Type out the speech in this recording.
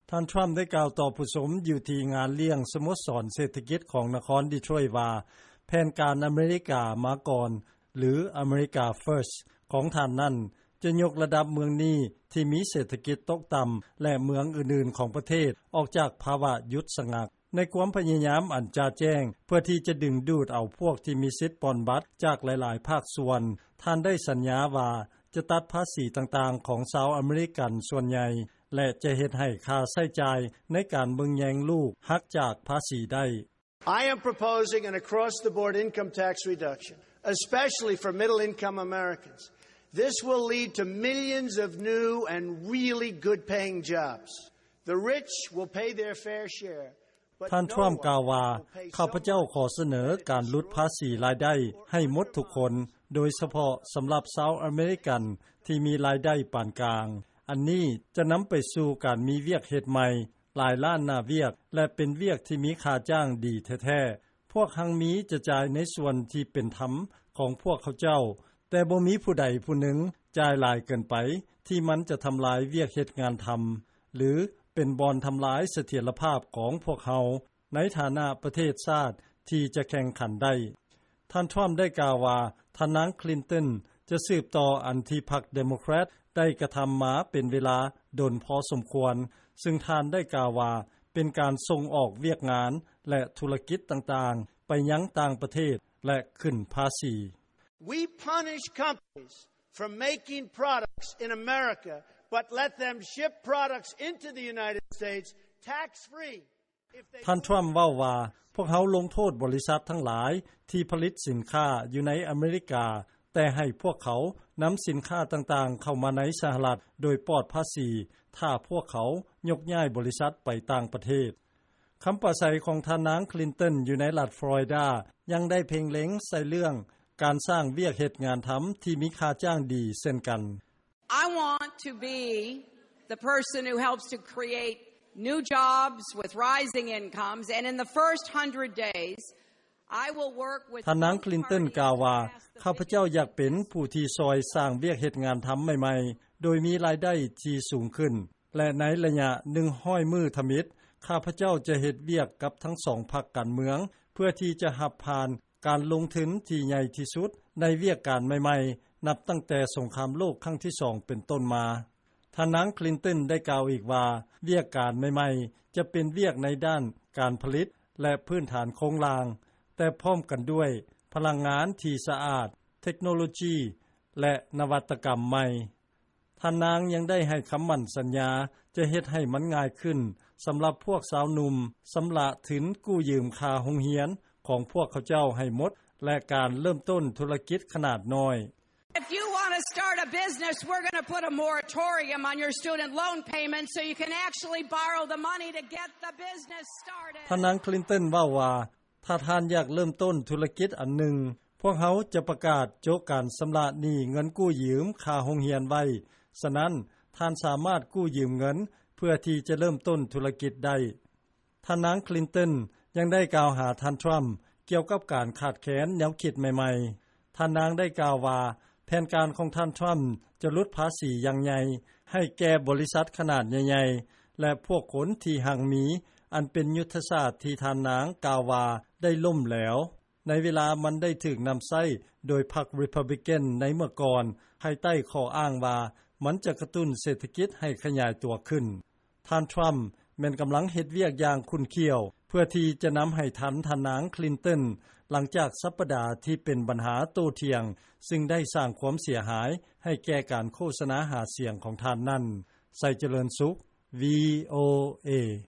ທ່ານ Trump ໄດ້ກ່າວຕໍ່ຜູ້ຊົມຢູ່ທີ່ງານລ້ຽງສະໂມສອນເສດຖະກິດຂອງນະຄອນ Detroit ວ່າ ແຜນການ America ມາກ່ອນ ຫຼື America First ຂອງທ່ານນັ້ນ ຈະຍົກລະດັບເມືອງນີ້ທີ່ມີເສດຖະກິດຕົກຕໍ່າ ແລະ ເມືອງອື່ນໆຂອງປະເທດ ອອກຈາກພາວະຢຸດສະງັກ. ໃນຄວາມພະຍາຍາມອັນຈະແຈ້ງເພື່ອທີ່ຈະດຶງດູດເອົາພວກທີ່ມີສິດປ່ອນບັດຈາກຫຼາຍໆພາກສ່ວນ, ທ່ານໄດ້ສັນຍາວ່າຈະຕັດພາສີຕ່າງໆຂອງຊາວອາເມລິກັນສ່ວນໃຫຍ່ ແລະ ຈະເຮັດໃຫ້ຄ່າໃຊ້ຈ່າຍໃນການເບິ່ງແຍງລູກຫັກຈາກພາສີໄດ້. I am proposing an across-the-board income tax reduction, especially for middle-income Americans. This will lead to millions of new and really good-paying jobs. The rich will pay their fair share, but no one will pay someone who pays so much. ທ່ານ Trump ກ່າວວ່າ ຂ້າພະເຈົ້າຂໍສະເໜີການຫຼຸດພາສີລາຍໄດ້ໃຫ້ໝົດທຸກຄົນ, ໂດຍສະເພາະສຳລັບຊາວອາເມລິກັນທີ່ມີລາຍໄດ້ປານກາງ. ອັນນີ້ຈະນຳໄປສູ່ການມີວຽກເຮັດໃໝ່ ຫຼາຍລ້ານໜ້າວຽກ ແລະ ເປັນວຽກທີ່ມີຄ່າຈ້າງດີແທ້ໆ. ພວກຮັ່ງມີຈະຈ່າຍໃນສ່ວນທີ່ເປັນທຳຂອງພວກເຂົາເຈົ້າ, ແຕ່ບໍ່ມີຜູ້ໃດຜູ້ໜຶ່ງຈ່າຍຫຼາຍເກີນໄປ ທີ່ມັນຈະທຳລາຍວຽກເຮັດງານທຳ ຫຼື ເປັນບ່ອນທຳລາຍສະຖຽນລະພາບຂອງພວກເຮົາ ໃນຖານະປະເທດຊາດທີ່ຈະແຂ່ງຂັນໄດ້. ທ່ານ Trump ໄດ້ກ່າວວ່າ ທ່ານນາງ Clinton ຈະສືບຕໍ່ອັນທີ່ພັກ Democrat ໄດ້ກະທຳມາເປັນເວລາດົນພໍສົມຄວນ, ຊຶ່ງທ່ານໄດ້ກ່າວວ່າເປັນການສົ່ງອອກວຽກງານ ແລະ ທຸລະກິດຕ່າງໆໄປຍັງຕ່າງປະເທດ ແລະ ຂຶ້ນພາສີ. We punish companies for making products in America, but let them ship products into the United States tax-free. ທ່ານ Trump ເວົ້າວ່າ ພວກເຮົາລົງໂທດບໍລິສັດທັງຫຼາຍທີ່ຜະລິດສິນຄ້າຢູ່ໃນອາເມລິກາ, ແຕ່ໃຫ້ພວກເຂົານຳສິນຄ້າຕ່າງໆເຂົ້າມາໃນສະຫະລັດໂດຍປອດພາສີ ຖ້າພວກເຂົາຍົກຍ້າຍບໍລິສັດໄປຕ່າງປະເທດ. ຄຳປາໄສຂອງທ່ານນາງ Clinton ຢູ່ໃນລັດ Florida ຍັງໄດ້ເພັ່ງເລັງໃສ່ເລື່ອງການສ້າງວຽກເຮັດງານທຳທີ່ມີຄ່າຈ້າງດີເຊັ່ນກັນ. I want to be the person who helps to create new jobs with rising incomes, and in the first hundred days, I will work with both parties to pass the ທ່ານນາງ Clinton ກ່າວວ່າ ຂ້າພະເຈົ້າຢາກເປັນຜູ້ທີ່ຊ່ອຍສ້າງວຽກເຮັດງານທຳໃໝ່ໆ ໂດຍມີລາຍໄດ້ທີ່ສູງຂຶ້ນ ແລະ ໃນໄລຍະໜຶ່ງຮ້ອຍມື້ທຳອິດ, ຂ້າພະເຈົ້າຈະເຮັດວຽກກັບທັງສອງພັກການເມືອງ ເພື່ອທີ່ຈະຮັບຜ່ານການລົງທຶນທີ່ໃຫຍ່ທີ່ສຸດໃນວຽກການໃໝ່ໆ ນັບຕັ້ງແຕ່ສົງຄາມໂລກຄັ້ງທີສອງເປັນຕົ້ນມາ. ທ່ານນາງ Clinton ໄດ້ກ່າວອີກວ່າ ວຽກການໃໝ່ໆຈະເປັນວຽກໃນດ້ານການຜະລິດ ແລະ ພື້ນຖານໂຄງລ່າງ, ແຕ່ພ້ອມກັນດ້ວຍພະລັງງານທີ່ສະອາດ, ເທັກໂນໂລຈີ ແລະ ນະວັດຕະກຳໃໝ່. ທ່ານນາງຍັງໄດ້ໃຫ້ຄຳໝັ້ນສັນຍາຈະເຮັດໃຫ້ມັນງ່າຍຂຶ້ນສຳລັບພວກຊາວໜຸ່ມຊຳລະທຶນກູ້ຢືມຄ່າໂຮງຮຽນຂອງພວກເຂົາເຈົ້າໃຫ້ໝົດ ແລະ ການເລີ່ມຕົ້ນທຸລະກິດຂະໜາດນ້ອຍ. If you want to start a business, we're gonna put a moratorium on your student loan payments so you can actually borrow the money to get the business started. ທ່ານນາງ Clinton ເວົ້າວ່າ ຖ້າທ່ານຢາກເລີ່ມຕົ້ນທຸລະກິດອັນໜຶ່ງ, ພວກເຮົາຈະປະກາດໂຈະການຊຳລະໜີ້ເງິນກູ້ຢືມຄ່າໂຮງຮຽນໄວ້, ສະນັ້ນ ທ່ານສາມາດກູ້ຢືມເງິນເພື່ອທີ່ຈະເລີ່ມຕົ້ນທຸລະກິດໄດ້. ທ່ານນາງ Clinton ຍັງໄດ້ກ່າວຫາທ່ານ Trump ກ່ຽວກັບການຂາດແຄນແນວຄິດໃໝ່ໆ. ທ່ານນາງໄດ້ກ່າວວ່າ ແຜນການຂອງທ່ານ Trump ຈະຫຼຸດພາສີຢ່າງໃຫຍ່ໃຫ້ແກ່ບໍລິສັດຂະໜາດໃຫຍ່ໆ ແລະ ພວກຄົນທີ່ຮັ່ງມີ, ອັນເປັນຍຸດທະສາດທີ່ທ່ານນາງກ່າວວ່າໄດ້ລົ້ມແຫຼວ ໃນເວລາມັນໄດ້ຖືກນຳໃຊ້ໂດຍພັກ Republican ໃນເມື່ອກ່ອນ, ພາຍໃຕ້ຂໍ້ອ້າງວ່າມັນຈະກະຕຸ້ນເສດຖະກິດໃຫ້ຂະຫຍາຍຕົວຂຶ້ນ. ທ່ານ Trump ແມ່ນກຳລັງເຮັດວຽກຢ່າງຂຸ້ນຂ້ຽວ ເພື່ອທີ່ຈະນຳໃຫ້ທັນທ່ານນາງ Clinton ຫຼັງຈາກສັບປະດາທີ່ເປັນບັນຫາໂຕ້ຖຽງ, ຊຶ່ງໄດ້ສ້າງຄວາມເສຍຫາຍໃຫ້ແກ່ການໂຄສະນາຫາສຽງຂອງທ່ານນັ້ນ. ໄຊຈະເລີນສຸກ VOA.